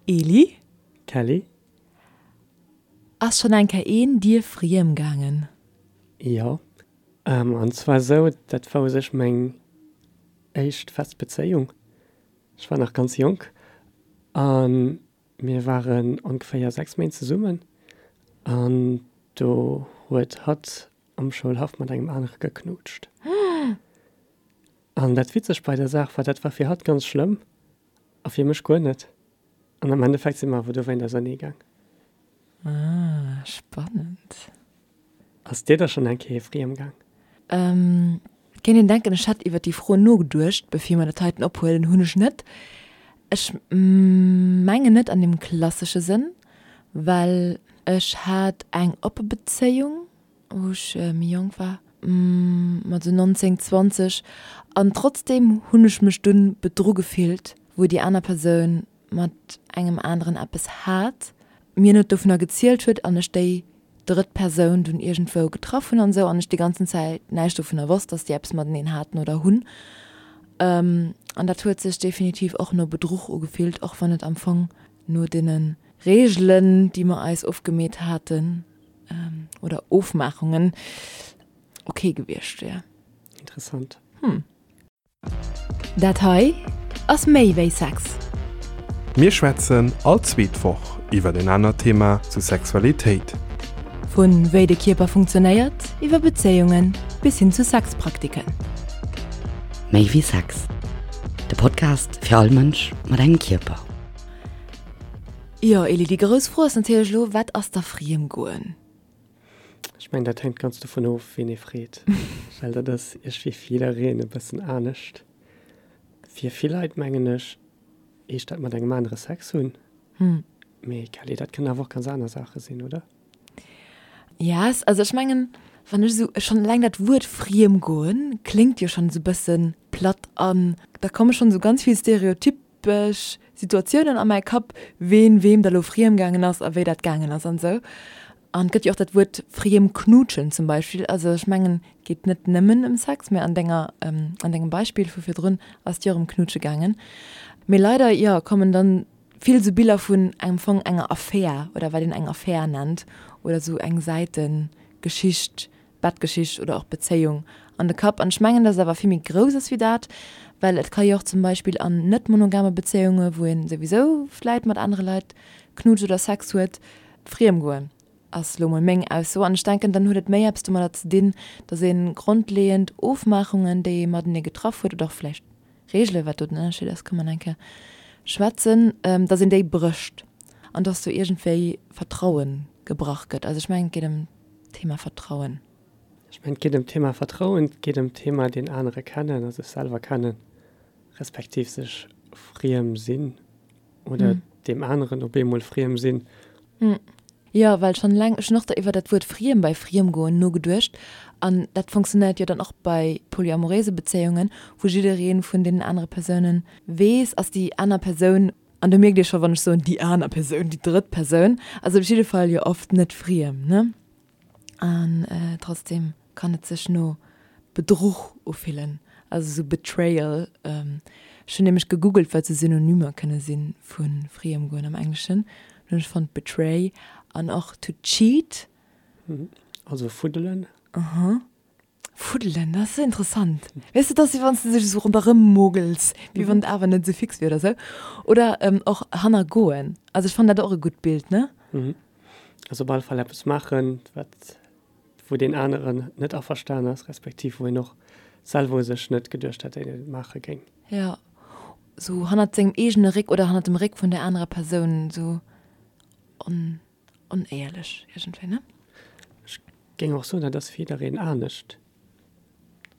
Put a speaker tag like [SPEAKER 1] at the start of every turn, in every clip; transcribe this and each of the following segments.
[SPEAKER 1] Eli?
[SPEAKER 2] Kelly?
[SPEAKER 1] Ass schonn eng Kéier een dir friem gaangen?
[SPEAKER 2] Jo. An zwar esou, dat war u sech meng éischt fest Bezéiung. Ech war nach ganz jonk a mir waren ongeféier 6 Méint zesummen an do huet hatt am Schoulhaff mat engem anere geknutscht. An dat Witzegt bei der Saach war, dat war fir hatt ganz schlëmm a fir mech guer net. An am Endeffekt si mer awer dowéint ausernee gaang.
[SPEAKER 1] Ah, spannend.
[SPEAKER 2] Ass dir da schonn eng Kéier friem gaang?
[SPEAKER 1] Et kéint een denken, ech hätt iwwer déi Fro nogeduecht, bevir mer dat heiten ophuelen. Hunn ech net. Ech mengen net an deem klassesche Sënn, well ech hat eng oppe Bezéiung, wou ech méi jonk war, mat esou 19, 20, an trotzdeem hunn ech mech dunn bedru gefillt, wou déi aner Persoun mat engem aneren eppes hat, mir net dovunner gezielt huet an ech déi drëtt Persoun dunn iergendwou getraff hunn an esou an ech déi ganzen Zäit näischt dovunner wosst, dass déi eppes mateneen haten oder hunn. An dat huet sech definitiv och no Bedruch ugefillt, och wann et am Fong no deene Reegelen, déi mer eis ofgemeet haten, oder Ofmaachungen, ok gewiescht wär.
[SPEAKER 2] Interessant.
[SPEAKER 1] Hm. Dat hei ass méi wéi Sex.
[SPEAKER 3] Mir schwätzen all zweet Woch iwwer en anert Thema zu Sexualitéit.
[SPEAKER 1] Vu wéi de Kierper funktionéiert, iwwer Bezéiungen bis hin zu Sexpraktiken.
[SPEAKER 4] Méi wéi Sex, de Podcast fir all Mënsch mat engem Kierper.
[SPEAKER 1] Jo Eli, déi grouss Fro ass natierlech elo, wat ass da Friemgoen?
[SPEAKER 2] Ech mengen, dat hänkt ganz dovun of, ween ee freet, well dat ass iergendwéi fir jiddereen e bëssen anescht. Fir vill Leit, mengen ech, heescht dat mat engem anere Sex hunn. Mee Kelly, dat kënnen awer och ganz aner Saache sinn, oder?
[SPEAKER 1] Yes, also ech mengen, wann ech esou, schonn eleng dat Wuert Friemgoen kléngt jo schonn esou e bësse platt an da komme schonn esou ganz vill stereotypesch Situatiounen a mäi Kapp, ween weem da lo friem gaangen ass a wéi dat gaangen ass an esou. An et gëtt jo och dat Wuert friem knutschen zum Beispill. Also ech mengen, et geet net nëmmen ëm Sex, mä an denger, an dengem Beispill vu virdrun ass et jo och ëm Knutsche gaangen. Mee leider, jo, kommen dann vill esou Biller vun am Fong enger Affär oder wat een eng Affär nennt oder esou eng Säitegeschicht, Bettgeschicht oder och Bezéiung an de Kapp. An ech mengen, dass et awer vill méi grouss ass wéi dat, well et ka jo och zum Beispill an net monogame Bezéiunge, wou ee souwisou vläit mat anere Leit knutscht oder Sex huet, friem goen, ass lo mol meng Ausso. An ech denken, dann huet et méi eppes domadder ze dinn, dass ee grondleeënd Ofmaachungen, déi ee matenee getraff huet, oder och vläicht Reegelen, wat do den Ënnerscheed ass, ka mer nach eng Kéier schwätzen, dass een déi brécht an dass do iergendwéi Vertraue gebrach gëtt. Also ech mengen, et geet ëm d'Thema Vertrauen.
[SPEAKER 2] Ech mengen, et geet ëm d'Thema Vertrauen, et geet ëm d'Thema deen anere kennen a sech selwer kennen, respektiv sech friem sinn oder deem aneren op eemol friem sinn.
[SPEAKER 1] Jo, well schonn eleng, ech hunn och da iwwer dat Wuert friem bei Friemgoen nogeduecht an dat funktionéiert jo dann och bei polyamoréise Bezéiungen, wou jidderee vun deenen anere Persounen weess, ass déi aner Persoun, an do mierkt Dir scho wann ech soen déi aner Persoun, déi drëtt Persoun ass op jidde Fall jo oft net friem, ne? An trotzdem kann et sech no Bedruch ufillen, also sou Betrayal. Ech hunn nämlech gegoogelt, wat sou Synonymer kënne si vu Friemgoen am Engleschen. Dann hunn ech fonnt betray an och to cheat.
[SPEAKER 2] Also fuddelen.
[SPEAKER 1] Aha. Fuddelen, dat ass interessant. Weess de, dat ass wéi wann s de sech esou ronderëm mogels, wéi wann et awer net esou fix wier oder sou. Oder och hannergoen. Also ech fannen dat och e gutt Bild, ne?
[SPEAKER 2] Also op alle Fall eppes maachen, wat, wou deen aneren net averstan ass, respektiv wou een och selwer u sech net geduecht hätt, datt een et maache géing.
[SPEAKER 1] Jo, sou hannert sengem eegene Réck oder hannert dem Réck vun där anerer Persoun, sou on, onéierlech iergendwéi, ne?
[SPEAKER 2] Ech géing och soen, dat ass fir jiddereen anescht.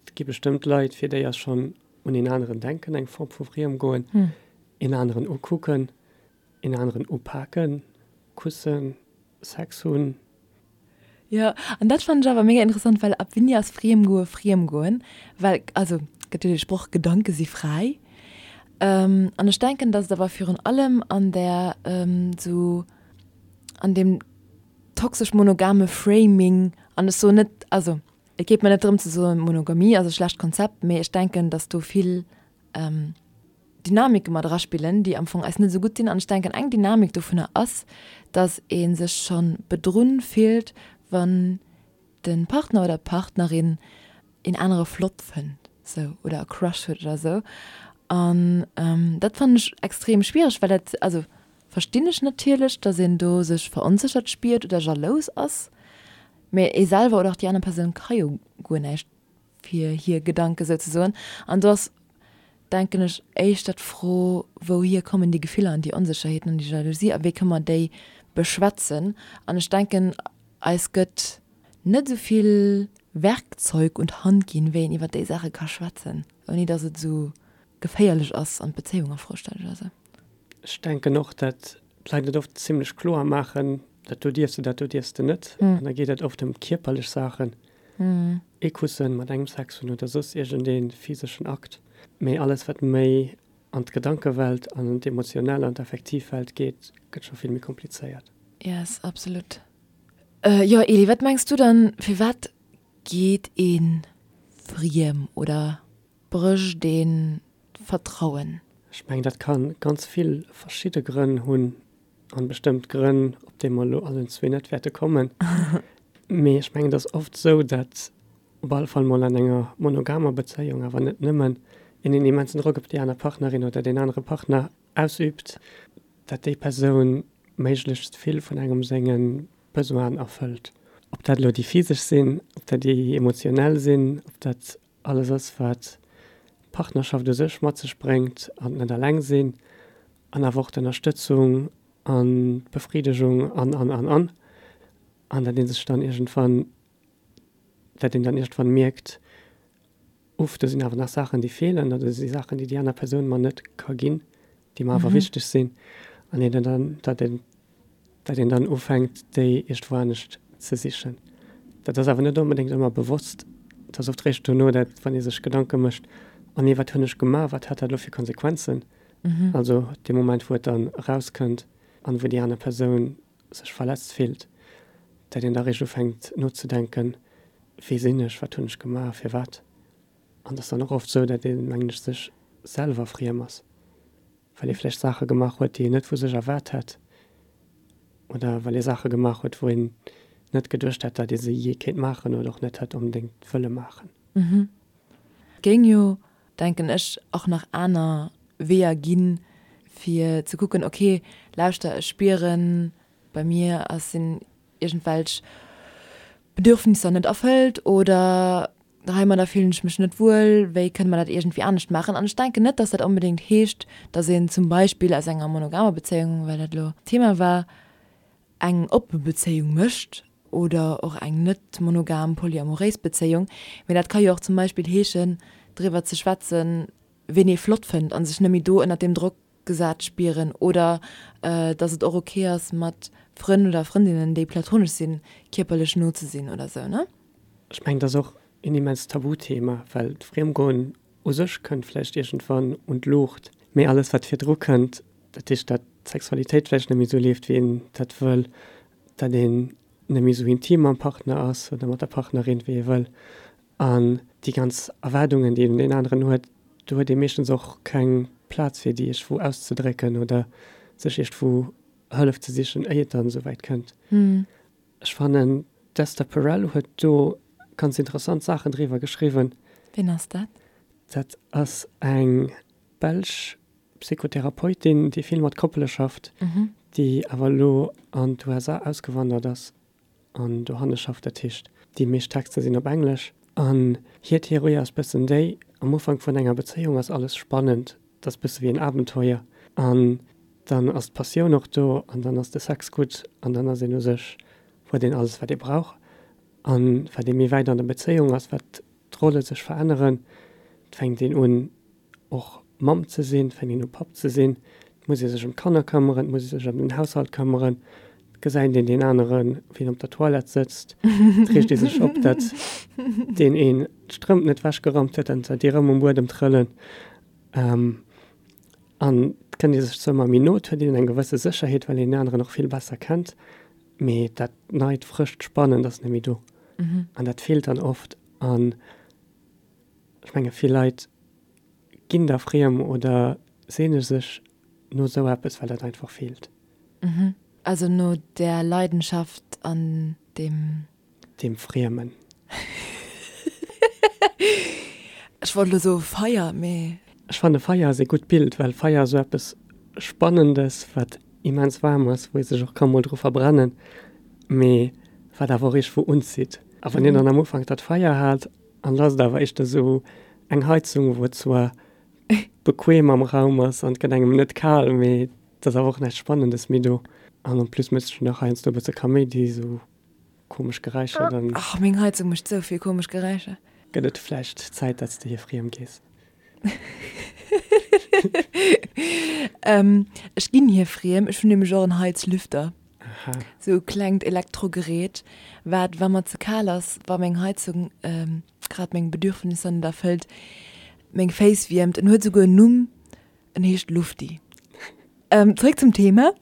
[SPEAKER 2] Et gi bestëmmt Leit, fir déi ass schonn un een aneren denken eng Form vu Friemgoen, een aneren ukucken, Een aneren upaken, kussen, Sex hunn.
[SPEAKER 1] Jo, an dat fannen ech awer mega interessant, well ab wéini ass Friemgoe Friemgoen? Well, also, gëtt jo dee Sproch, Gedanke si fräi. An ech denken, datt et awer virun allem an där, sou an deem toxesch monogame Framing, an ech soen net, also et geet mer net drëm ze soen, Monogamie ass e schlecht Konzept, mee ech denken, datt do vill. Dynamike mat eraspillen, déi am Fong eis net esou gutt dinn. An ech denken, eng Dynamik dovunner ass, dass ee sech scho bedrunn fillt, wann de Partner oder d'Partnerin een anere flott fënnt sou oder e Crush huet oder sou. An dat fannen ech extrem schwiereg, well dat, also verstinn ech natierlech, dass een do sech veronséchert spiert oder jalous ass, mä ee selwer oder och déi aner Persoun ka jo guer näischt fir hir Gedanke souzesoen. An do ass, denken ech, éischter d'Fro, wouhier kommen déi Gefiller an déi Onsécherheeten an déi Jalousie a wéi kënne mer déi beschwätzen? An ech denken, eis gëtt net esou vill Werkzeug un d'Hand ginn, wéi een iwwer déi Saache ka schwätzen, ouni datt et esou geféierlech ass an d'Bezéiung a Fro stellt oder esou.
[SPEAKER 2] Ech denken och, datt d'Leit et oft zimlech kloer maachen, dat do dierfs de, dat do dierfs de net. An da geet et oft ëm kierperlech Saachen, ee Kussen mat engem Sex hunn oder soss iergendee physeschen Akt. Mee alles, wat méi an d'Gedankewelt an an d'emotionell an d'affektiv Welt geet, gëtt scho vill méi komplizéiert.
[SPEAKER 1] Yes, absolut. Jo, Eli, wat mengs du dann, firwat geet ee friem oder brécht een d'Vertrauen?
[SPEAKER 2] Ech mengen, dat ka ganz vill verschidde Grënn hunn. An bestëmmt Grënn, op déi mer elo allen zwee net wäerte kommen. Mee ech mengen, et ass oft esou, datt op alle Fall mol an enger monogamer Bezéiung, awer net nëmmen, een en immensen Drock op déi aner Partnerin oder deen anere Partner ausüübt, datt déi Persoun méiglechst vill vun engem senge Besoinen erfëllt. Ob dat elo déi physesch sinn, ob dat déi emotionell sinn, ob dat Alles ass, wat d'Partnerschaft u sech mat sech bréngt an d'net alleng sinn an awer och d'Ënnerstëtzung an d'Befridegung an, an, an, an. An dat ee sech dann iergendwann, dat een dann iergendwann mierkt, Uff, do sinn awer nach Saachen, déi feelen oder do si Saachen, déi déi aner Persoun mer net ka ginn, déi mer awer wichteg sinn. An een dann, dat een dat een dann ufänkt, déi iergendwou anescht ze sichen. Dat ass awer net onbedéngt ëmmer bewosst. Et ass oft réischt dono, dat wann ee sech Gedanke mécht, Oh nee, wat hunn ech gemaach, wat hat dat elo fir Konsequenzen? Also dee Moment, wou et dann erauskënnt an wou déi aner Persoun sech verletzt fillt, dat een da réischt ufänkt nozedenken, Wie sinn ech, wat hunn ech gemaach, firwat? An et ass dann och oft esou, dat een, mengen ech, sech selwer friem ass. Well ee vläicht Saache gemaach huet, déi een net vu sech erwaart hätt, oder well ee Saache gemaach huet, wou een net geduecht hätt, datt ee se jee kéint maachen oder och net hätt onbedéngt wëlle maachen.
[SPEAKER 1] Et géing jo, denken ech, och nach aner Weeër ginn, fir ze kucken, ok, lauschter, ech spieren, bei mir ass, sinn iergendwelch Bedürfnisser net erfëllt oder heimadder fillen ech mech net wuel, wéi kënne mer dat iergendwéi anescht maachen? An ech denken net, dass dat onbedéngt heescht, dass een zum Beispill aus enger monogamer Bezéiung, well dat elo d'Thema war, eng oppe Bezéiung mécht oder och eng net monogam polyamoréis Bezéiung. Mee dat ka jo och zum Beispill heeschen, driwwer ze schwätzen, ween ee flott fënnt a sech net méi do ënnert deem Drock gesat spieren oder dass et och ok ass mat Frënn oder Frëndinnen déi platonesch sinn kierperlech no ze sinn oder sou ne?
[SPEAKER 2] Ech mengen et ass och een immenst Tabuthema, well d'Friemgoen u sech kënnt vläicht iergendwann un d'Luucht, mee alles wat virdru kënnt, dat heescht dat d'Sexualitéit vläicht net méi sou leeft wéi een dat wëll, dat een net méi sou intim mam Partner ass oder mat der Partnerin wéi ee wëll An déi ganz Erwaardungen, déi een un deen aneren huet, do huet ee meeschtens och keng Plaz fir déi iergendwou auszedrécken oder sech iergendwou Hëllef ze sichen, éier et dann esou wäit kënnt. Ech fannen, d'Esther Perel huet do ganz interessant Saachen driwwer geschriwwen.
[SPEAKER 1] Ween ass dat?
[SPEAKER 2] Dat ass eng belsch Psychotherapeutin, déi vill mat Koppele schafft, déi awer elo an d'USA ausgewandert ass. an dohanne schafft. Dat heescht, déi meescht Texter sinn op Englesch. An hir Theorie ass bëssen déi, am Ufank vun enger Bezéiung ass alles spannend, et ass bësse wéi en Abenteuer an dann ass d'Passioun och do an dann ass de Sex gutt an dann ass een u sech, huet een alles wat ee brauch. An wat ee méi wäit an der Bezéiung ass, wat d'Rolle sech veränneren, et fänkt een un och Mamm ze sinn, et fänkt een u Papp ze sinn, et muss ee sech ëm d'Kanner këmmeren, et muss ee sech ëm den Haushalt këmmeren, et gesäit een deen aneren, wéi en op der Toilette sëtzt, et reegt ee sech op, datt deen een d'Strëmp net wechgeraumt huet an datt déi erëm um Buedem trëllen. An et kënnt ee sech zwar ëmmer méi no, et huet een eng gewësse Sécherheet, well een deen aneren och vill besser kennt, mee dat Neit, Frëscht, Spannend ass net méi do. An dat feelt dann oft. An ech menge vill Leit ginn da friem oder. seene sech no esou eppes, well dat einfach feelt.
[SPEAKER 1] Also no där Leidenschaft an deem.
[SPEAKER 2] Deem Friemen.
[SPEAKER 1] Ech wollt elo soe Feier, mee.
[SPEAKER 2] Ech fanne Feier ass ee gutt Bild, well Feier ass esou eppes Spannendes, wat immens waarm ass, wou ee sech och ka mol dru verbrennen, mee wat awer och iergendwou unzitt. A wann een dann am Ufank dat Feier hat an et ass et awer éischter esou eng Heizung, wou et zwar bequem am Raum ass an et gëtt engem net kal, mee et ass awer och näischt Spannendes méi do. An en plus mécht sech nach heiansdo e bësse Kaméidi, esou komesch Geräischer,
[SPEAKER 1] dann. Ach, meng Heizung mécht sou vill komesch Geräischer.
[SPEAKER 2] Gëtt et vläicht Zäit, dat s de hir friem gees?
[SPEAKER 1] Ech ginn hir friem. Ech hunn nämlech och en Heizlüfter.
[SPEAKER 2] Aha.
[SPEAKER 1] Sou e klengt Elektrogerät, wat, wa mer ze kal ass, wa meng Heizung grad meng Bedürfnisser net erfëllt, meng Féiss wiermt. En huet souguer en Numm, en heescht Lufti. Zréck zum Thema.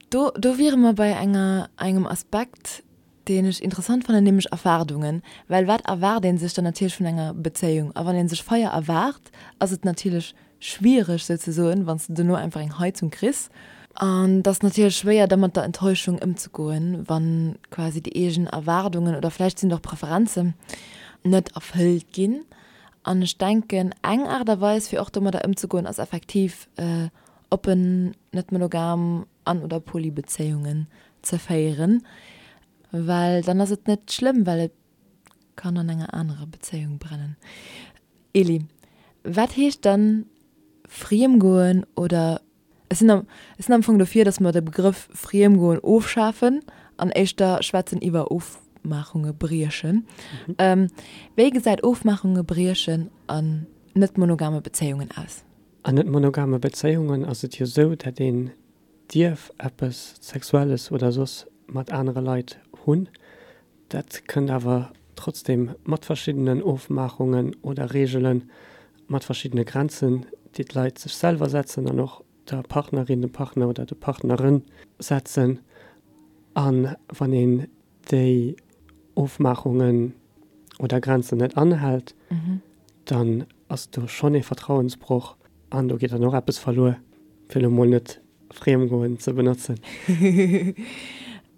[SPEAKER 1] Do, do wiere mer bei enger, engem Aspekt, deen ech interessant fannen, nämlech Erwaardungen. Well wat erwaart ee sech dann natierlech vun enger Bezéiung? A wann ee sech Feier erwaart, ass et natierlech schwiereg souzesoen, wann s de dono einfach eng Heizung kriss. An et ass natierlech schwéier, da mat der Enttäuschung ëmzegoen, wa quasi déi eegen Erwaardungen oder vläicht sinn et och Preferenzen net erfëllt ginn. An ech denken, eng Aart a Weis, fir och domadder ëmzegoen, ass effektiv oppen, net monogam an oder poly Bezéiungen ze féieren, well dann ass et net schlëmm, well et kann an enger anerer Bezéiung brennen. Elie, wat heescht dann Friemgoen oder, ech sinn am, ech sinn am Fong dofir, dass mer de Begrëff Friemgoen ofschafen an éischter schwätzen iwwer Ofmaachunge briechen. Wéi gesäit Ofmaachunge briechen an net monogame Bezéiungen aus?
[SPEAKER 2] An net monogame Bezéiungen ass et jo sou, dat een dierf eppes Sexuelles oder soss mat anere Leit hunn. Dat kënnt awer trotzdem mat verschiddenen Ofmaachungen oder Reegelen, mat verschiddene Grenzen, déi d'Leit sech selwer setzen an och der Partnerin, dem Partner oder de Partnere setzen. A wann een déi Ofmaachungen oder Grenzen net anhält, dann ass do schonn ee Vertrauensbroch an do geet dann och eppes verluer, fir elo mol net Friemgoen ze benotzen.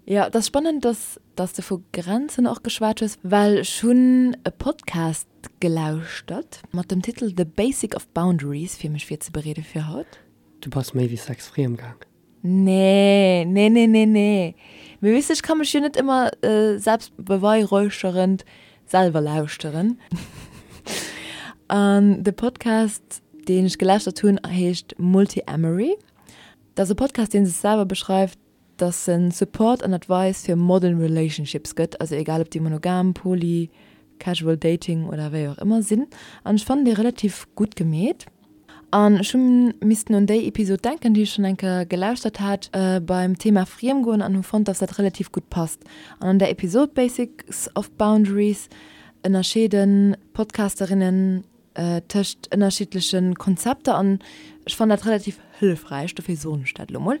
[SPEAKER 1] Jo, et ass spannend, dass dass de vu Grenzen och geschwat hues, well ech hunn e Podcast gelauschtert mat dem Titel The Basic of Boundaries, fir mech virzebereede fir haut.
[SPEAKER 2] Du bass méi wéi Sex friem gaang.
[SPEAKER 1] Nee, nee, nee, nee, nee. Mee weess de, ech ka mech jo net ëmmer selbstbeweihräucherend selwer lauschteren. An de Podcast, deen ech gelauschtert hunn, heescht Multiamory. Dat ass e Podcast, dee sech selwer beschreift, dass en Support an Advice fir modern relationships gëtt, also egal ob déi monogam, poly, casual dating oder wéi och ëmmer sinn. An ech fannen déi relativ gutt gemeet. An ech hu missten un déi Episod denken, déi ech schonn eng Kéier gelauschtert hat beim Thema Friemgoen an hu fonnt, dass dat relativ gutt passt. An an där Episod Basics of Boundaries ënnerscheeden d'Podcasterinnen tëscht ënnerschiddleche Konzepter an ech fannen dat relativ hëllefräich, dofir soen ech dat elo mol,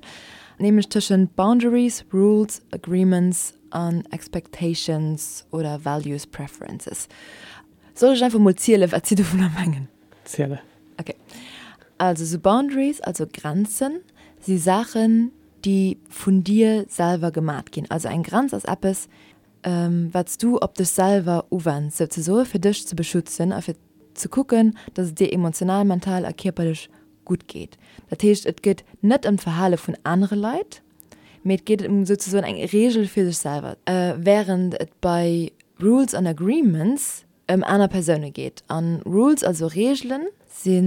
[SPEAKER 1] nämlech tëschent Boundaries, Rules, Agreements an Expectations oder Values, Preferences. Soll ech einfach mol zielen, wat si dovunner mengen?
[SPEAKER 2] Ziele.
[SPEAKER 1] Ok. Also sou Boundaries, also Grenzen, si Saachen, déi vun dir selwer gemat ginn. Also eng Grenz ass eppes, wat s du op dech selwer uwenns, souzesoe fir dech ze beschützen a fir ze kucken, dass et dir emotional, mental a kierperlech gutt geet. Dat heescht, et geet net ëm d'Verhale vun anere Leit, mee et geet ëm souzesoen eng Reegel fir sech selwer, wärend et bei Rules an Agreements ëm aner Persoune geet. A Rules, also Reegelen, si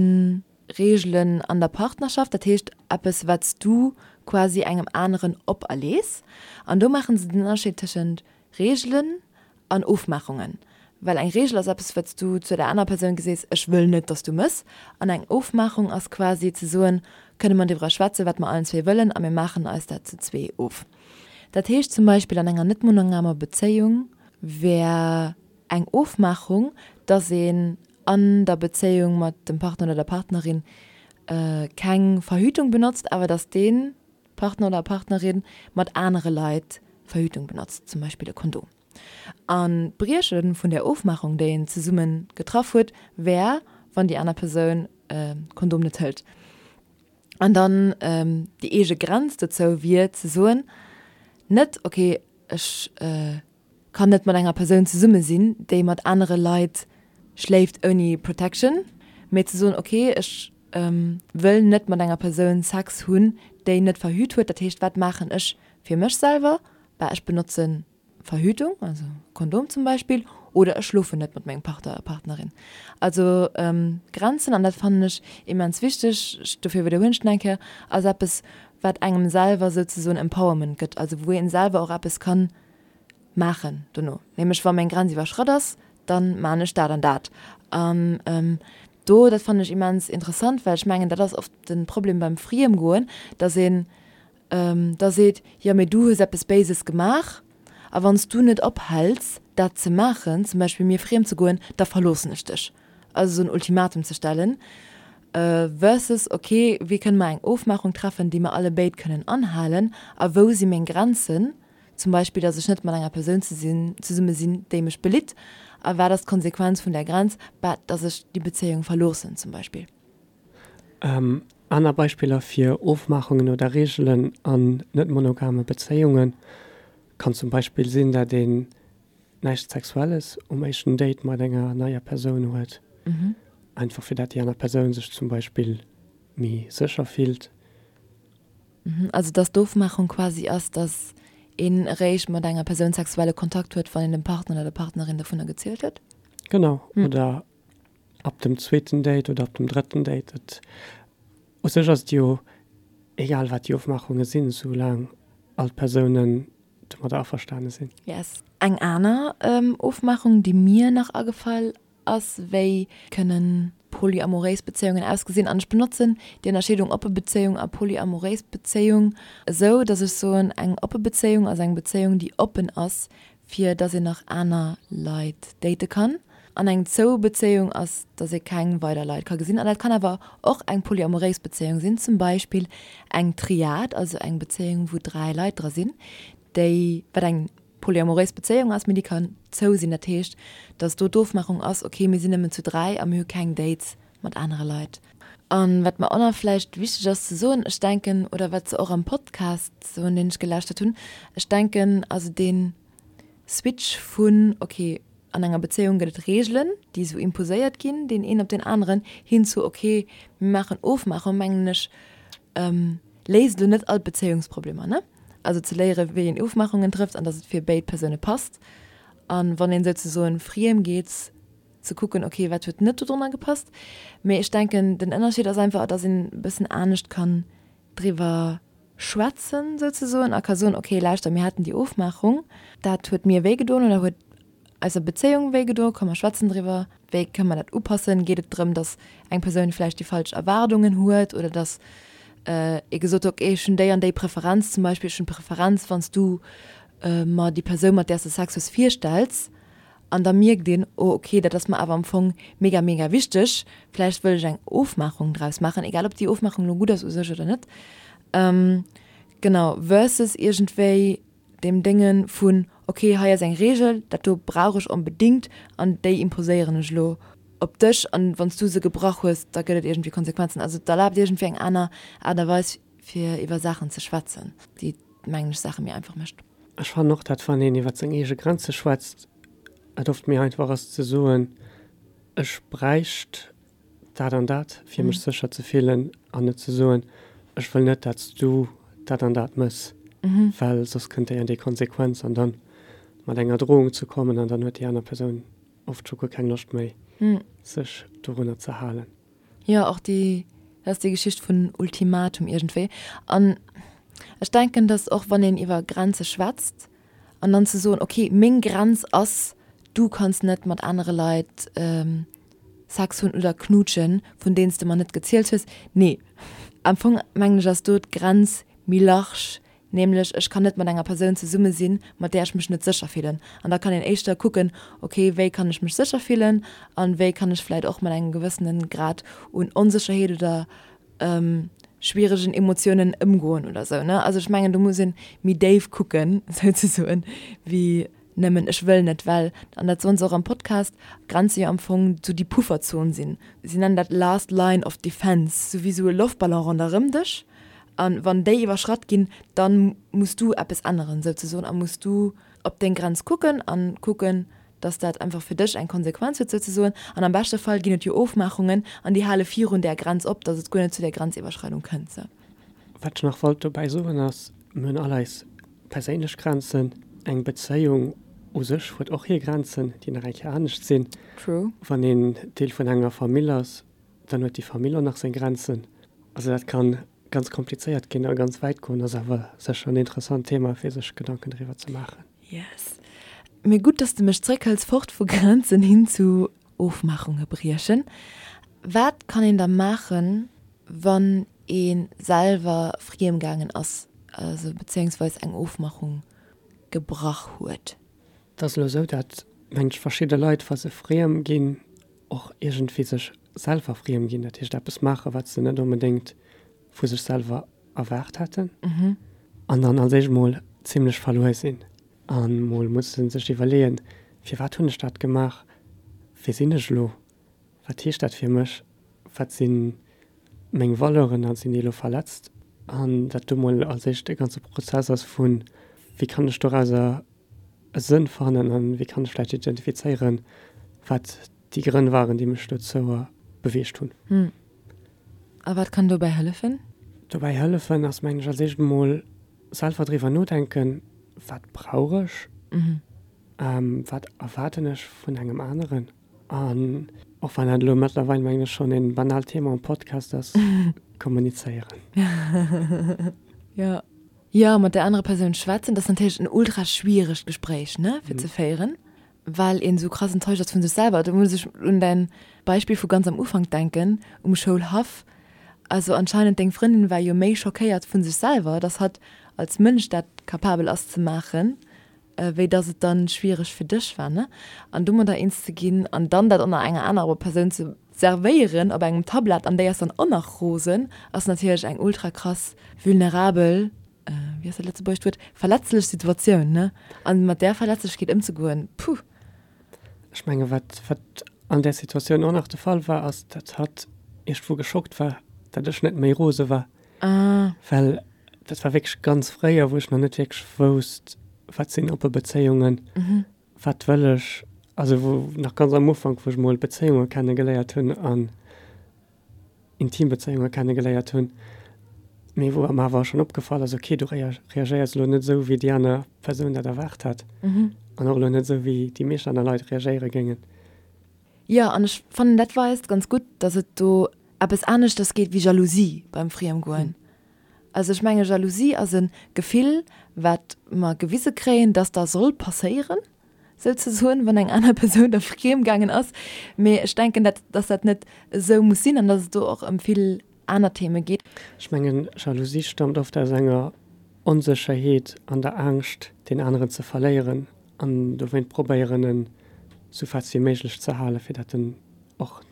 [SPEAKER 1] Reegelen an der Partnerschaft, dat heescht eppes, wat s du quasi engem aneren operlees. An do maache se den Ënnerscheed tëschent Reegelen an Ofmaachungen. Well eng Reegel ass eppes, wat s du zu der anerer Persoun gesees, ech wëll net, dass du mëss. An eng Ofmaachung ass quasi ze soen, kënne mer driwwer schwätzen, wat mer allen zwee wëllen a mir maachen eis dat zu zwee of. Dat heescht zum Beispill an enger net monogamer Bezéiung wär eng Ofmaachung, dass een an der Bezéiung mat dem Partner oder der Partnerin keng Verhütung benotzt, awer dass dee Partner oder Partnerin mat anere Leit Verhütung benotzt, zum Beispill e Kondom. An d'Brieche vun där Ofmaachung, déi een zesumme getraff huet, wär, wann déi aner Persoun e Kondom net hëlt. An dann déi eege Grenz dozou wier ze soen, net ok ech kann net mat enger Persoun zesumme sinn, déi mat anere Leit schléift ouni Protection, mee ze soen ok ech wëll net mat enger Persoun Sex hunn, déi net verhüt huet. Dat heescht wat maachen ech fir mech selwer? Bah ech benotzen Verhütung, also Kondom zum Beispill, oder ech schlofen net mat mengem Partner, Partnerin. Also Grenzen, an dat fannen ech immens wichteg, dofir widderhuelen ech et nach eng Kéier, ass eppes wat engem selwer souzesoen Empowerment gëtt, also wou een selwer och eppes kann maachen dono. Nämlech wa meng Grenz iwwerschratt ass, dann maan ech dat an dat. An do, dat fannen ech immens interessant, well ech mengen dat ass oft den Problem beim Friemgoen, dass een da seet, jo mee du hues eppes Béises gemaach a wann s du net ophäls dat ze maachen, zum Beispill mir friem ze goen, da verloossen ech dech. Also esou en Ultimatum ze stellen versus ok, wéi kënne mer eng Ofmaachung treffen, déi mer alle béid kënnen anhalen a wou si meng Grenzen, zum Beispill datt ech net mat enger Persoun zesumme sinn, déi mech belitt a wat ass d'Konsequenz vun där Grenz, bah datt ech déi Bezéiung verloossen zum Beispill.
[SPEAKER 2] Aner Beispiller fir Ofmaachungen oder Reegelen an net-monogame Bezéiunge kann zum Beispill sinn, dat een näischt Sexuelles um éischten Date mat enger neier Persoun huet, einfach fir dat déi aner Persoun sech zum Beispill méi sécher fillt.
[SPEAKER 1] Also dass d'Ofmaachung quasi ass, dass een eréischt mat enger Persoun sexuelle Kontakt huet, wann een dem Partner oder der Partnerin dovunner gezielt huet?
[SPEAKER 2] Genau, oder Ab dem zweeten Date oder ab dem drëtten Date. Et, u sech ass et jo egal wat déi Ofmaachunge sinn, soulaang all d'Persounen domadder averstane sinn.
[SPEAKER 1] Yes. Eng aner Ofmaachung, déi mir nach agefall ass, wéi kënnen polyamoréis Bezéiungen ausgesinn, an ech benotzen déi Ënnerscheedung oppe Bezéiung a polyamoréis Bezéiung esou, datt ech soen, eng oppe Bezéiung ass eng Bezéiung, déi oppen ass fir dass een nach aner Leit date kann. An eng zou Bezéiung ass, dass ee keng weider Leit ka gesinn. An dat kann awer och eng polyamoréis Bezéiung sinn, zum Beispill eng Triad, also eng Bezéiung wou 3 Leit dra sinn, déi, wat eng polyamoréis Bezéiung ass, mee déi kann zou sinn. Dat heescht, dass do d'Ofmachung ass, ok mir sinn nëmmen zu 3 a mir hu keng Dates mat anere Leit. An wat mer och nach vläicht wichteg ass ze soen, ech denken, oder wat se och am Podcast soen, deen ech gelauschtert hunn, ech denken, also dee Switch vun, ok, an enger Bezéiung gëtt et Reegelen, déi esou imposéiert ginn, deen een op deen aneren, hin zu, ok, mir maachen Ofmaachung, mengen ech, léist elo net all d'Bezéiungsproblemer, ne? Also ze léieren, wéi een Ofmaachungen trëfft an datt et fir béid Persoune passt. An wann een souzesoen friem geet, ze kucken, ok, wat huet net dodrunner gepasst. Mee ech denken, den Ënnerscheed ass einfach, dass een e bëssen anescht kann driwwer schwätzen souzesoen a ka soen, ok, lauschter, mir haten déi Ofmaachung, dat huet mir wéi gedoen oder huet eiser Bezéiung wéi gedoen, komm mer schwätzen driwwer, wéi kënne mer dat upassen? Geet et drëm, dass eng Persoun vläicht déi falsch Erwaardungen huet oder dass ee gesot huet, ok, ech hunn déi an déi Preferenz zum Beispill, ech hunn d'Preferenz, wann s du mer déi Persoun, mat där s de Sex hues, virstells. An da mierkt een, oh ok, dat ass mer awer am Fong mega, mega wichteg, vläicht wëll ech eng Ofmaachung draus maachen, egal ob déi Ofmaachung elo gutt ass u sech oder net. Genau, versus iergendwéi deem Dénge vun, ok, hei ass eng Reegel, dat do brauch ech onbedéngt an déi imposéieren ech elo op dech an wann s du se gebrach hues, da gëtt et iergendwéi Konsequenzen. Also et erlaabt iergendwéi eng aner Aart a Weis fir iwwer Saachen ze schwätzen, déi, mengen ech, Saache méi einfach mécht.
[SPEAKER 2] Ech fannen och, dat wann een iwwer seng eege Grenze schwätzt, et oft méi einfach ass ze soen, ech bräicht dat an dat, fir mech sécher ze fillen, an net ze soen, ech wëll net, dat s du dat an dat mëss, well soss kënnt déi an déi Konsequenz, an dann mat enger Drohung ze kommen, an dann huet déi aner Persoun oft scho guer keng Loscht méi, sech dorunner ze halen.
[SPEAKER 1] Jo, och déi, dat ass déi Geschicht vun Ultimatum iergendwéi. An ech denken, datt och wann een iwwer Grenze schwätzt an dann ze soen, okay, meng Grenz ass, du kanns net mat anere Leit Sex hunn oder knuutschen, vun deenen s de mer net gezielt hues. Nee, am Fong mengen ech ass do d'Grenz méi large, Nämlech, ech kann net mat enger Persoun zesumme sinn, mat där ech mech net sécher fillen. An da kann een éischter kucken, ok, wéi kann ech mech sécher fillen an wéi kann ech vläit och mat engem gewëssene Grad un Onsécherheet oder schwieregen Emotiounen ëmgoen oder sou, ne? Also ech mengen, do muss ee méi déif kucken, souzesoen, wéi. Nëmmen ech wëll net, well, an dat soen se och am Podcast, Grenze jo am Fong sou déi Pufferzon sinn. Si nennen dat last line of defense, sou wéi sou e Loftballon ronderëm dech. An wann déi iwwerschratt ginn, dann muss du eppes änneren souzesoen a muss du op deng Grenz kucken an kucken, dass dat einfach fir dech eng Konsequenz huet souzesoen. An am beschte Fall ginn et jo Ofmaachungen an déi hale virun där Grenz op, dass et guer net zu där Grenziwwerschreidung kënnt. Sou.
[SPEAKER 2] Wat ech nach wollt dobäi soen ass, mir hunn all eis perséinlech Grenzen. Eng Bezéiung u sech huet och hir Grenzen, déi nach eng Kéier anescht sinn.
[SPEAKER 1] True.
[SPEAKER 2] Wann een Deel vun enger Famill ass, dann huet déi Famill och nach seng Grenzen. Also dat kann ganz komplizéiert ginn a ganz wäit goen, ass awer sécher en interessant Thema fir sech Gedanken driwwer ze maachen.
[SPEAKER 1] Yes. Mee gutt, dass de mech zréckhëls, fort vu Grenzen hin zu Ofmaachunge briechen. Wat kann een da maachen, wann ee selwer friem gaangen ass, also bezéiungsweis eng Ofmachung gebrach huet?
[SPEAKER 2] Et ass elo esou, dat mengt ech verschidde Leit, wa se friem ginn, och iergendwéi sech selwer friem ginn, dat heescht eppes maachen, wat se net onbedéngt vu sech selwer erwaart hätten, an dann als éischt mol zimlech verluer sinn a mol musse sech iwwerleeën, firwat hunn ech dat gemaach, wie sinn ech elo, wat heescht dat fir mech, wat si meng Valeuren a sinn déi elo verletzt? An dat do mol als éischt e ganze Prozess ass vu wéi kann ech dorauser e Sënn fannen an wéi kann ech vläicht identifizéieren, wat déi Grënn waren, déi mech dozou beweegt hunn.
[SPEAKER 1] Hm. A wat kann dobäi hëllefen?
[SPEAKER 2] Dobäi hëllefen ass, mengen ech, als éischt emol selwer driwwer nodenken, wat brauch ech, wat erwaarden ech vun engem aneren? An och wann dat elo mëttlerweil, mengen ech, schonn e banaalt Thema am Podcast ass, kommunizéieren.
[SPEAKER 1] Jo. Jo, mat där anerer Persoun schwätzen, dat ass natierlech en ultra schwieregt Gespréich, ne, fir ze féieren, well een esou krass enttäuscht ass vu sech selwer. Do muss ech un däin Beispill vu ganz am Ufank denken, um Schoulhaff. Also anscheinend deng Frëndin war jo méi schockéiert vu sech selwer, dass hatt als Mënsch dat capabel ass ze maachen, wéi dass et dann schwiereg fir dech war, ne? An domadder eens ze ginn an dann dat och nach enger anerer Persoun ze servéieren op engem Tablett an déi ass dann och nach rosen, ass natierlech eng ultra krass vulnerabel, wéi ass dat lëtzebuergescht Wuert, verletzlech Situatioun, ne? An mat där Verletzlechkeet ëmzegoen, puh!
[SPEAKER 2] Ech menge wat wat an där Situatioun och nach de Fall war, ass dat hatt iergendwou geschockt war, dat ech net méi rose war.
[SPEAKER 1] Ah.
[SPEAKER 2] Well dat war wierklech ganz fréier, wou ech nach net wierklech wousst, wat sinn oppe Bezéiungen, wat wëll ech, also wou nach ganz am Ufank, wou ech mol Bezéiunge kenne geléiert hunn an intim Bezéiunge kenne geléiert hunn, mee wou mer awer schonn opgefall ass, okay, du reagéiers elo net esou, wéi déi aner Persoun dat erwaart hat an och elo net esou, wéi déi meescht aner Leit reagéiere géingen.
[SPEAKER 1] Jo, an ech fannen dat weist ganz gutt, dass et do eppes aneschters geet wéi Jalousie beim Friemgoen. Also ech menge Jalousie ass e Gefill, wat mer gewise kréien, dass da soll passéieren, souzesoen, wann eng aner Persoun da friem gaangen ass. Mee ech denken, dat dass dat net esou muss sinn an dass et do och ëm vill aner Theme geet.
[SPEAKER 2] Ech mengen, Jalousie stammt oft aus enger Onsécherheet an der Angscht, deen aneren ze verléieren an dowéint probéieren, en sou fest wéi méiglech ze halen, fir dat en och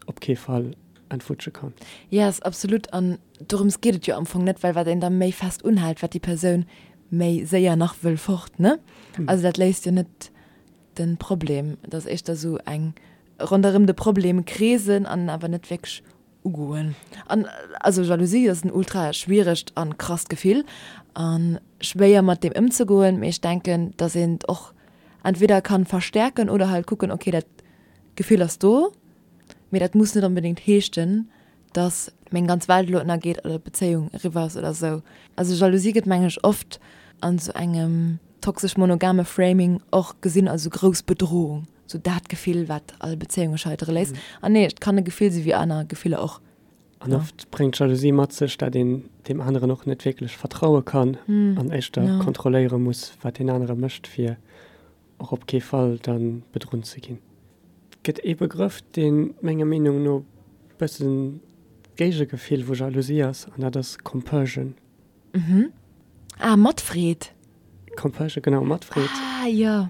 [SPEAKER 2] op kee Fall entwutsche kann.
[SPEAKER 1] Yes, absolut. An dorëms geet et jo am Fong net, well wat een da méi fest unhält, wat déi Persoun méi séier nach wëll fort, ne? Also dat léist jo net de Problem. Et ass éischter sou eng ronderëm de Problem kreesen an en awer net wierklech ugoen. An also Jalousie ass en ultra schwieregt an krasst Gefill an schwéier mat deem ëmzegoen, mee ech denken dass een et och entweder kann verstärken oder halt kucken, okay dat Gefill ass do, mee dat muss net onbedéngt heeschten dass meng ganz Welt elo ënnergeet oder d'Bezéiung eriwwer ass oder sou. Also Jalousie gëtt mengen ech oft an sou engem toxesch monogame Framing och gesinn als sou grouss Bedrohung. Sou dat Gefill, wat all Bezéiunge scheitere léisst. An nee, et kann e Gefill si wéi aner Gefiller och.
[SPEAKER 2] An oft bréngt Jalousie mat sech, dat een deem aneren och net wierklech vertraue kann an éischter kontrolléiere muss, wat deen anere mécht, fir och op kee Fall da bedrunn ze ginn. Et gëtt ee Begrëff, dee menger Meenung no bëssen d'Géigegefill vu Jalousie ass, an dat ass Compersion.
[SPEAKER 1] Ah, Matfreed.
[SPEAKER 2] Compersion, genau, Matfreed.
[SPEAKER 1] Ah, jo.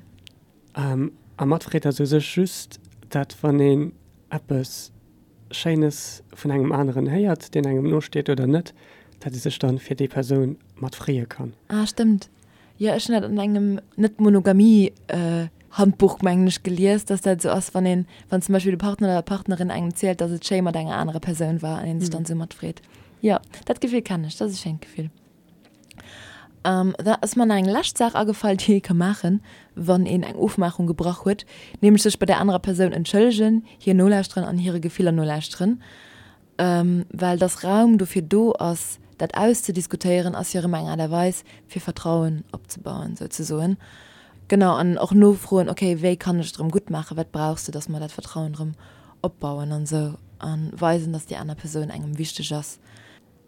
[SPEAKER 2] A matfreet ass u sech just dat, wann een eppes Schéines vun engem aneren héiert, deen engem nosteet oder net, dat ee sech dann fir déi Persoun mat freeë kann.
[SPEAKER 1] Ah, stëmmt. Jo, ech hunn dat an engem Net-Monogamie Handbuch, mengen ech, gelies, dass dat esou ass, wann een, wann zum Beispill de Partner oder d'Partnerin engem zielt, dass et schéi mat enger anerer Persoun war an een sech dann esou matfreet. Jo, dat Gefill kennen ech, dat ass e schéint Gefill. Da ass mer nach eng lescht Saach agefall, déi ee ka maachen, wann een eng Ofmaachung gebrach huet, nämlech sech bei där anerer Persoun entschëllegen, hir nolauschteren an hire Gefiller nolauschteren. Well dass Raum dofir do ass, dat auszediskutéieren, ass jo erëm eng Aart a Weis, fir Vertrauen opzebauen, souzesoen. Genau, an och nofroen, okay, wéi kann ech et erëm gutt maachen, wat brauchs de, dass mer dat Vertrauen erëm opbauen an esou, a weisen, dass déi aner Persoun engem wichteg ass.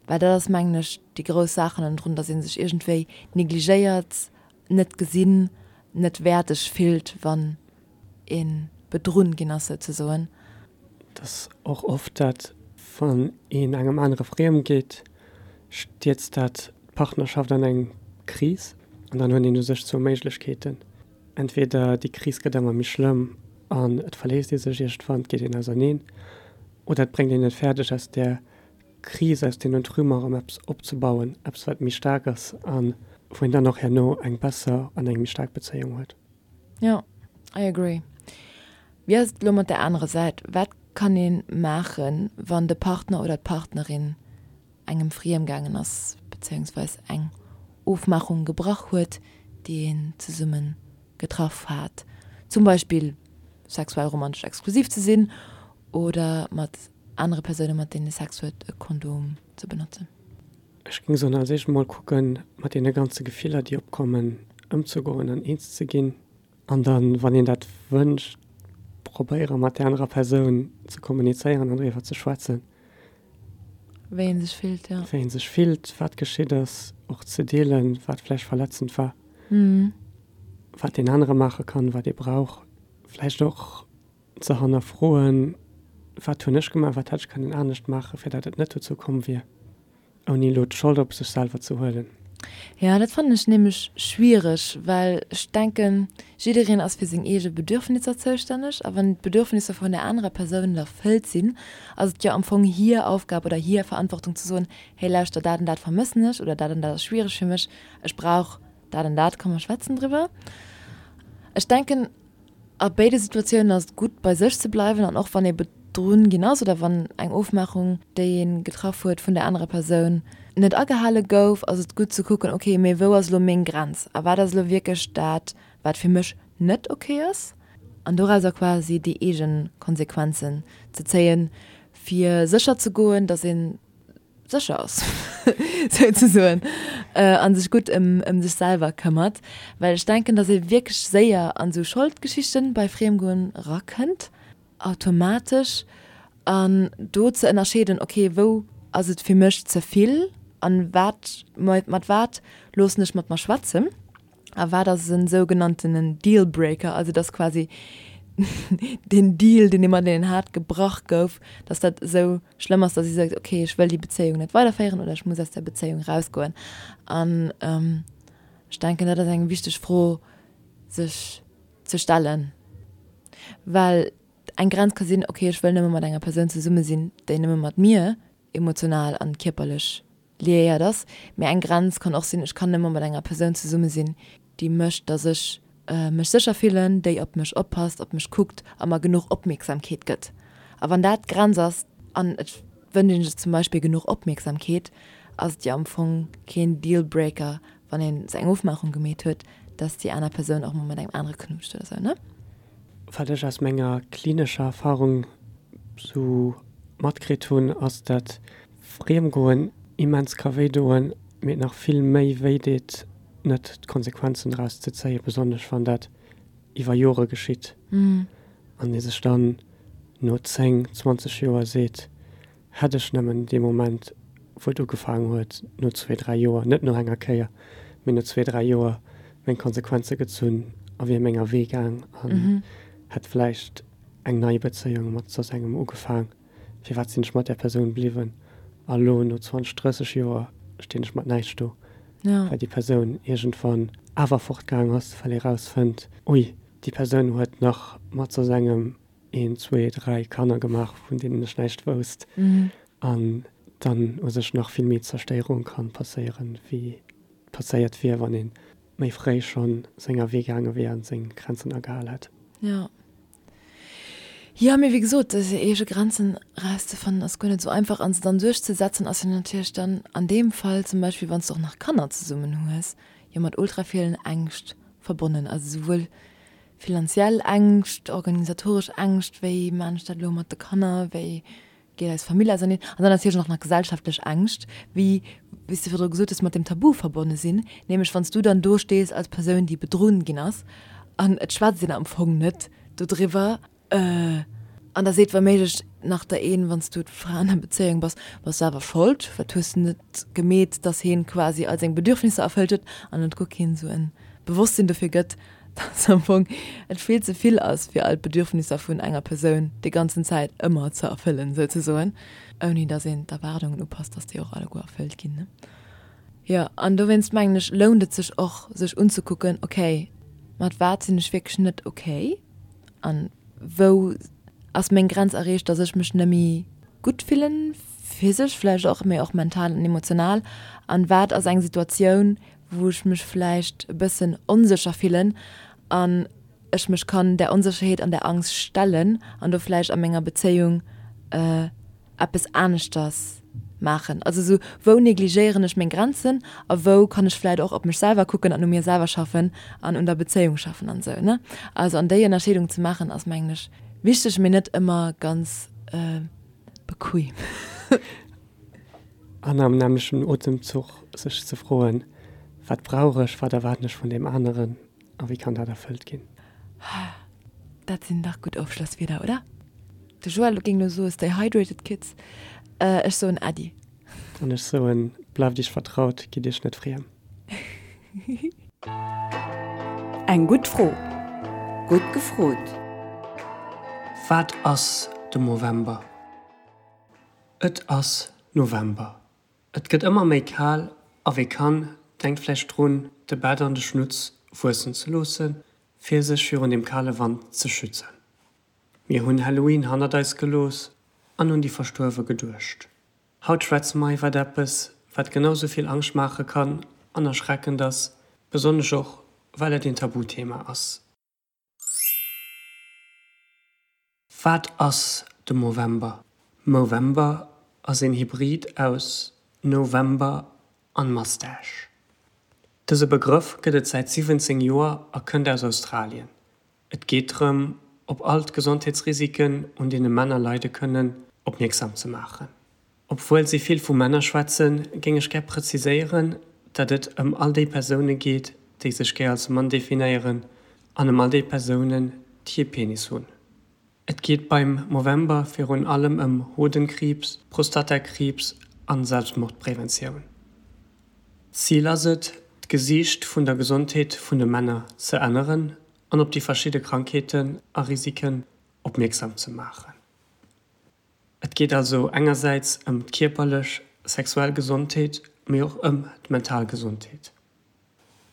[SPEAKER 1] Well dat ass, mengen ech, déi grouss Saach hannendrun, dass ee sech iergendwéi negligéiert, net gesinn, net wäerteg fillt, wann ee bedrunn ginn ass, souzesoen.
[SPEAKER 2] Et ass och oft dat, wann een engem anere friem geet, stierzt dat d'Partnerschaft an eng Kris. An dann huet een u sech zwou Méiglechkeeten, Entweder déi Kris gëtt ëmmer méi schlëmm an et verléisst ee sech iergendwann, et geet een auserneen, oder et bréngt een et fäerdeg, aus där Kris, aus deenen Trümmer erëm eppes opzebauen, eppes wat méi staark ass a wou een dann och herno eng besser an eng méi staark Bezéiung huet.
[SPEAKER 1] Jo, I agree. Wéi ass et elo mat der anerer Säit? Wat kann ee maachen, wann de Partner oder d'Partnerin engem friem gaangen ass, bezéiungsweis eng Ofmaachung gebrach huet, déi een zesumme getraff hat, zum Beispill sexuell romantesch exklusiv ze sinn oder mat anere Persoune mat deenen ee Sex huet e Kondom ze benotzen?
[SPEAKER 2] Ech géing soen, als éischt emol kucken, mat deene ganze Gefiller, déi opkommen, ëmzegoen an eens ze ginn. An dann, wann een dat wënscht, probéiere mat där anerer Persoun ze kommunizéieren an driwwer ze schwätzen.
[SPEAKER 1] Wéi ee sech fillt, jo.
[SPEAKER 2] Wéi ee sech fillt, wat geschitt ass, och ze deelen, wat vläicht verletzend war, wat deen anere maache kann, wat ee brauch. Vläicht och ze hannerfroen, Wat hunn ech gemaach, wat hätt ech kënnen anescht maachen, fir dat et net dozou komm wier, ouni elo d'Schold op sech selwer ze huelen.
[SPEAKER 1] Jo, dat fannen ech nämlech schwiereg, well ech denken, jiddereen ass fir seng eege Bedürfnisser zoustänneg a wann d'Bedürfnisser vun der anerer Persoun net erfëllt sinn, ass et jo am Fong hir Aufgab oder hir Verantwortung ze soen, Hey, lauschter, dat an dat vermëssen ech oder dat an dat ass schwiereg fir mech, ech brauch dat an dat, komm mer schwätzen driwwer. Ech denken, A béide Situatiounen ass et gutt, bei sech ze bleiwen an och wann ee bedrunn ginn ass oder wann eng Ofmaachung, déi ee getraff huet, vun der anerer Persoun net agehale gouf, ass et gutt ze kucken, ok, mee wou ass elo meng Grenz a wat ass elo wierklech dat, wat fir mech net ok ass? An dorauser quasi déi eege Konsequenzen ze zéien, fir sécher ze goen, datt een sécher ass, souzesoen, a sech gutt ëm sech selwer këmmert. Well ech denken, datt ee wierklech séier an esou Scholdgeschichten bei Friemgoen erakënnt, automatesch. An do ze ënnerscheeden, ok, wou ass et fir mech ze vill an wat, mat wat loossen ech mat mer schwätzen? A wat ass en sougenanntenen Dealbreaker? Also dass quasi den Deal, deen ee mat deenen hat, gebrach gouf, dass dat esou schlëmm ass, dass ee seet, okay, ech wëll déi Bezéiung net weiderféieren oder ech muss aus der Bezéiung rausgoen. An ech denken, dat ass eng wichteg Fro, sech ze stellen, well eng Grenz ka sinn, okay, ech wëll nëmme mat enger Persoun zesumme sinn, déi nëmme mat mir emotional an kierperlech liéiert ass. Mee eng Grenz kann och sinn, ech kann nëmme mat enger Persoun zesumme sinn, déi mécht, dass ech mech sécher fillen, déi op mech oppasst, op mech kuckt a mer genuch Opmierksamkeet gëtt. A wann dat d'Grenz ass an et wënscht ee sech zum Beispill genuch Opmierksamkeet, ass et jo am Fong keen Dealbreaker, wann een sou eng Ofmaachung gemeet huet, dass déi aner Persoun och mol mat engem anere knutscht oder sou, ne?
[SPEAKER 2] Wat ech aus menger klinescher Erfahrung sou matkritt hunn, ass dat Friemgoen immens ka wéi doen, mee et nach vill méi wéi deet, net d'Konsequenzen draus ze zéien, besonnesch wann dat iwwer Jore geschitt an ee sech dann no 10, 20 Joer seet, hätt ech nëmmen dee Moment, wou et ugefaangen huet, no zwee, dräi Joer, net no enger Kéier, mee no zwee, dräi Joer meng Konsequenze gezunn a wier menger Wee gaang an hätt vläicht eng nei Bezéiung mat soss engem ugefaang. Firwat sinn ech mat där Persoun bliwwen? A lo, no 20, 30 Joer, stinn ech mat näischt do, well déi Persoun iergendwann awer fortgaang ass, well ee rausfënnt, ui, déi Persoun huet nach mat soss engem een, zwee, dräi Kanner gemaach, vun deenen ech näischt wousst. An dann u sech nach vill méi Zerstéierung ka passéieren, wéi passéiert wier, wann een. méi fréi schonn senger Wee gaange wier an seng Grenzen agehal hätt.
[SPEAKER 1] Jo. Jo, mee wéi gesot, seng eege Grenzen erauszefannen ass guer net esou einfach an se dann duerchzesetzen ass jo natierlech dann an deem Fall zum Beispill, wann s de och nach Kanner zesummen hues, jo mat ultra villen Ängscht verbonnen. Also souwuel finanziell Ängscht, organisatoresch Ängscht, wéi maan ech dat elo mat de Kanner, wéi geet eis Famill auserneen, an dann natierlech och nach gesellschaftlech Ängscht, wéi wéi s de virdru gesot hues, mat dem Tabu verbonne sinn, nämlech wann s du dann do stees als Persoun, déi bedrunn ginn ass, an et schwätzt een am Fong net dodriwwer, an da seet wa méiglech nach der een, wann s du d'Fra an der Bezéiung bass, bass selwer Schold, wat hues de net gemeet, dass heen quasi all seng Bedürfnisser erfëllt huet, an et guer keen esou en Bewosstsinn dofir gëtt, dass am Fong et vill ze vill ass, fir all d'Bedürfnisser vun enger Persoun déi ganzen Zäit ëmmer ze erfëllen, souzesoen, ouni dass een d'Erwaardungen upasst, dass déi och alleguer erfëllt ginn, ne? Jo, an dowéinst mengen ech, lount et sech och, sech unzekucken, okay, mat wat sinn ech wierklech net okay an wou ass meng Grenz erreecht, dass ech mech net méi gutt fillen, physesch vläicht och, mee och mental an emotional, an wat ass eng Situatioun, wou ech mech vläicht e bëssen onsécher fillen an ech mech kann där Onsécherheet an där Angst stellen an do vläicht a menger Bezéiung eppes aneschters maachen. Also esou, wou negligéieren ech meng Grenzen a wou kann ech vläicht och op mech selwer kucken an u mir selwer schaffen an un der Bezéiung schaffen an esou, ne? Also an déi Ënnerscheedung ze maachen ass mengen ech wichteg, mee net ëmmer ganz bequem.
[SPEAKER 2] An am nämmlechten Otemzuch sech ze froen, Wat brauch ech, wat erwaarden ech vun deem aneren a wéi kann dat erfëllt ginn?
[SPEAKER 1] Dat sinn dach gutt Ofschlosswierder, oder? De Joël géing elo soe Stay hydrated, kids. Ech soen Äddi.
[SPEAKER 2] An ech soen, Bleift iech vertraut, gitt iech net friem.
[SPEAKER 4] Eng gutt Fro. Gutt gefrot.
[SPEAKER 2] Wat ass de Movember? Et ass November. Et gëtt ëmmer méi kal a wie kann, denkt vläicht drun, de Bett an de Schnutz wuessen ze loossen, fir sech virun dem kale Wand ze schützen. Mir hunn Halloween hannert eis gelooss an un déi Verstuerwe geduecht. Haut schwätze mer iwwert eppes, wat genau sou vill Angscht maache kann an erschreckend ass, besonnesch och well et een Tabuthema ass. Wat ass de Movember? Movember ass een Hybrid aus November an Mustache. Dëse Begrëff gëtt et säit 17 Joer a kënnt aus Australien. Et geet drëm, op all d'Gesondheetsrisiken, un deene Männer leide kënnen, opmierksam ze maachen. Obwuel si vill vu Männer schwätzen, géing ech gär preziséieren, datt et ëm all déi Persoune geet, déi sech gär als Mann definéieren, an ëm all déi Persounen, déi ee Penis hunn. Et geet beim Movember virun allem ëm Hodenkriibs, Prostatakriibs an Selbstmordpreventioun. Zil ass et, d'Gesiicht vun der Gesondheet vun de Männer ze änneren an op déi verschidde Krankheeten a Risiken opmierksam ze maachen. Et geet also engersäits ëm d'kierperlech, sexuell Gesondheet, mee och ëm d'mental Gesondheet.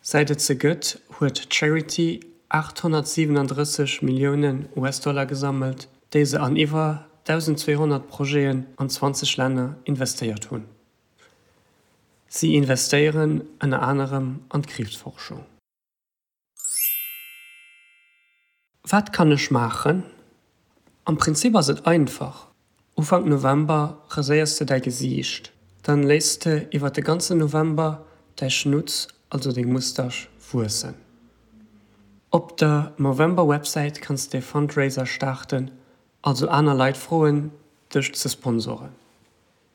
[SPEAKER 2] Säit et se gëtt, huet d'Charity 837 Milliounen US-Dollar gesammelt, déi se an iwwer 1.200 Projeten an 20 Länner investéiert hunn. Si investéieren ënner anerem an d'Kriibsforschung. Wat kann ech maachen? Am Prinzip ass et einfach, Ufank November raséiers de däi Gesiicht, dann léiss de iwwer de ganzen November däi Schnutz, also deng Mustasch, wuessen. Op der Movember Websäit kanns de Fundraiser starten, also aner Leit froen dech ze sponsoren.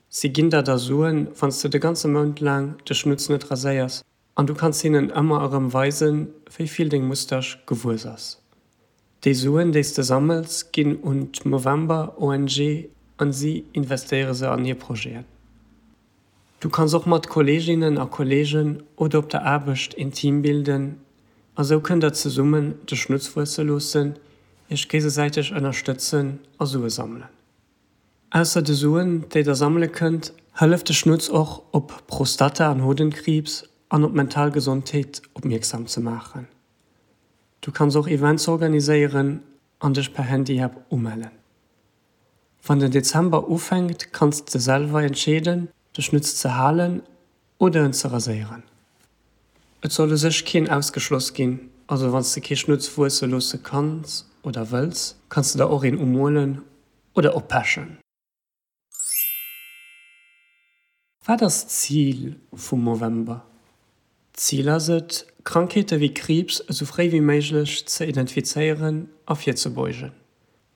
[SPEAKER 2] Si ginn der da Suen, wann s de de ganze Mount laang de Schnutz net raséiers. An du kanns hinnen ëmmer erëm weisen, wéi vill deng Mustasch gewuess ass. Déi Suen, déi s de sammels, ginn un d'Movember ONG an si investéiere se an hir Projeten. Du kanns och mat Kolleeginnen a Kolleegen oder op der Aarbecht een Team bilden a sou kënnt der zesummen de Schnutz wuesse loossen, iech géigesäiteg ënnerstëtzen a Sue sammelen. Ausser de Suen, déi der sammele kënnt, hëlleft de Schnutz och, op Prostata an Hodenkriibs an op d'mental Gesondheet opmierksam ze maachen. Du kanns och Events organiséieren an dech per Handy-App umellen. Wann den Dezember ufänkt, kanns de selwer entscheeden, de Schnutz ze halen oder en ze raséieren. Et soll u sech keen ausgeschloss ginn, also wann s de kee Schnutz wuesse loosse kanns oder wëlls, kanns de der och een umolen oder oppechen. Wat ass d'Zil vum Movember? D'Zil ass et, Krankheete wéi Kriibs esou fréi wéi méiglech ze identifizéieren a virzebeugen.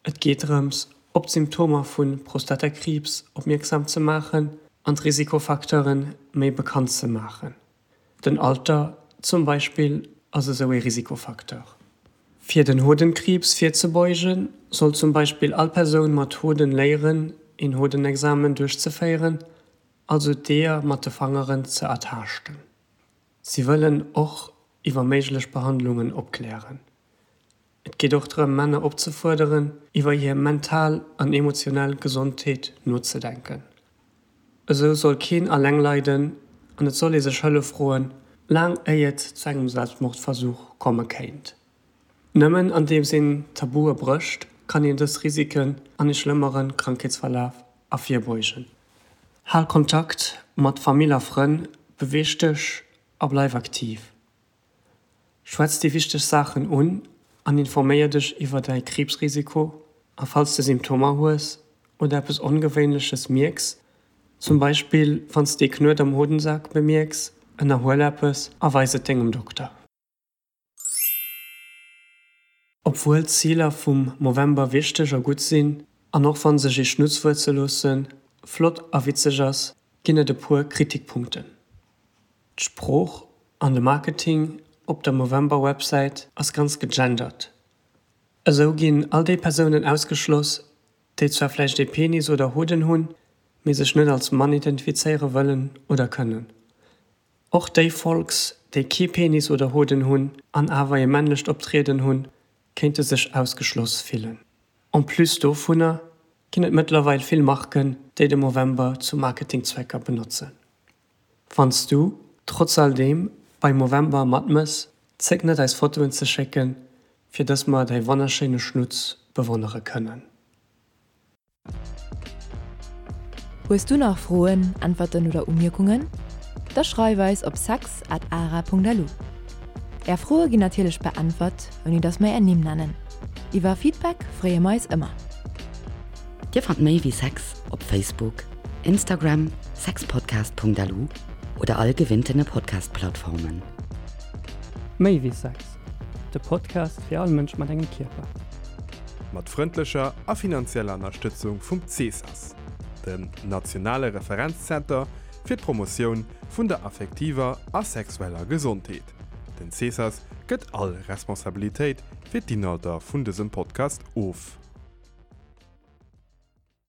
[SPEAKER 2] Et geet drëms, op d'Symptomer vu Prostatakriibs opmierksam ze maachen an d'Risikofacteure méi bekannt ze maachen. Den Alter zum Beispill ass esou ee Risikofacteur. Fir den Hodenkriibs virzebeugen, soll zum Beispill all Persoun mat Hoden léieren, een Hodenexamen duerchzeféieren, also d'Eeër mat de Fangeren ze ertaaschten. Si wëllen och iwwer méiglech Behandlungen opklären. Et geet och drëm, Männer opzefuerderen, iwwer hir mental an emotionell Gesondheet nozedenken. Esou soll keen alleng leiden an et soll ee sech Hëllef froen, laang éi et zu engem Selbstmordversuch komme kéint. Nëmmen andeems een Tabue brécht, kann een dës Risiken an ee schlëmmere Krankheetsverlaf ervirbeugen. Hal Kontakt mat Famill a Frënn, beweeg dech a bleif aktiv. Schwätz déi wichteg Saachen un an informéier dech iwwer däi Kriibsrisiko. A falls de Symptomer hues oder eppes Ongewéinleches mierks, zum Beispill wann s de ee Knuet am Hodensak bemierks, ënnerhuel eppes a weis et dengem Dokter. Obwuel d'Ziler vum Movember wichteg a gutt sinn, an och wann sech ee Schnutz wuesse loossen flott a witzeg ass, ginn et e puer Kritikpunkten. D'Sprooch an de Marketing op der Movember-Websäit ass ganz gegendert. Esou ginn all déi Persounen ausgeschloss, déi zwar vläicht ee Penis oder Hoden hunn, mee sech net als Mann identifizéiere wëllen oder kënnen. Och déi Folks, déi kee Penis oder Hoden hunn an awer ee männlecht Optrieden hunn, kéinte sech ausgeschloss fillen. En plus dovunner ginn et mëttlerweil vill Marken, déi de Movember zu Marketingzwecker benotzen. Wann s du, trotz all deem, bei Movember matmëss, zéck net eis Fotoen ze schécken, fir dass mer däi wonnerschéine Schnutz bewonnere kënnen.
[SPEAKER 1] Hues du nach Froen, Äntwerten oder Umierkungen? Da schreif eis op sex at ara.lu. Är Froe ginn natierlech beäntwert, ouni dass mer är Nimm nennen. Iwwer Feedback freeë mer eis ëmmer.
[SPEAKER 4] Dir fannt méi wéi Sex op Facebook, Instagram, sexpodcast.lu oder all gewinntene Podcast-Plattformen.
[SPEAKER 2] Méi wéi Sex, de Podcast fir all Mënsch mat engem Kierper.
[SPEAKER 3] Mat frëndlecher a finanzieller Ënnerstëtzung vum CESAS, dem nationale Referenzzenter fir d'Promotioun vun der affektiver a sexueller Gesondheet. Den CESAS gëtt all Responsabilitéit fir d'Inhalter vun dësem Podcast of.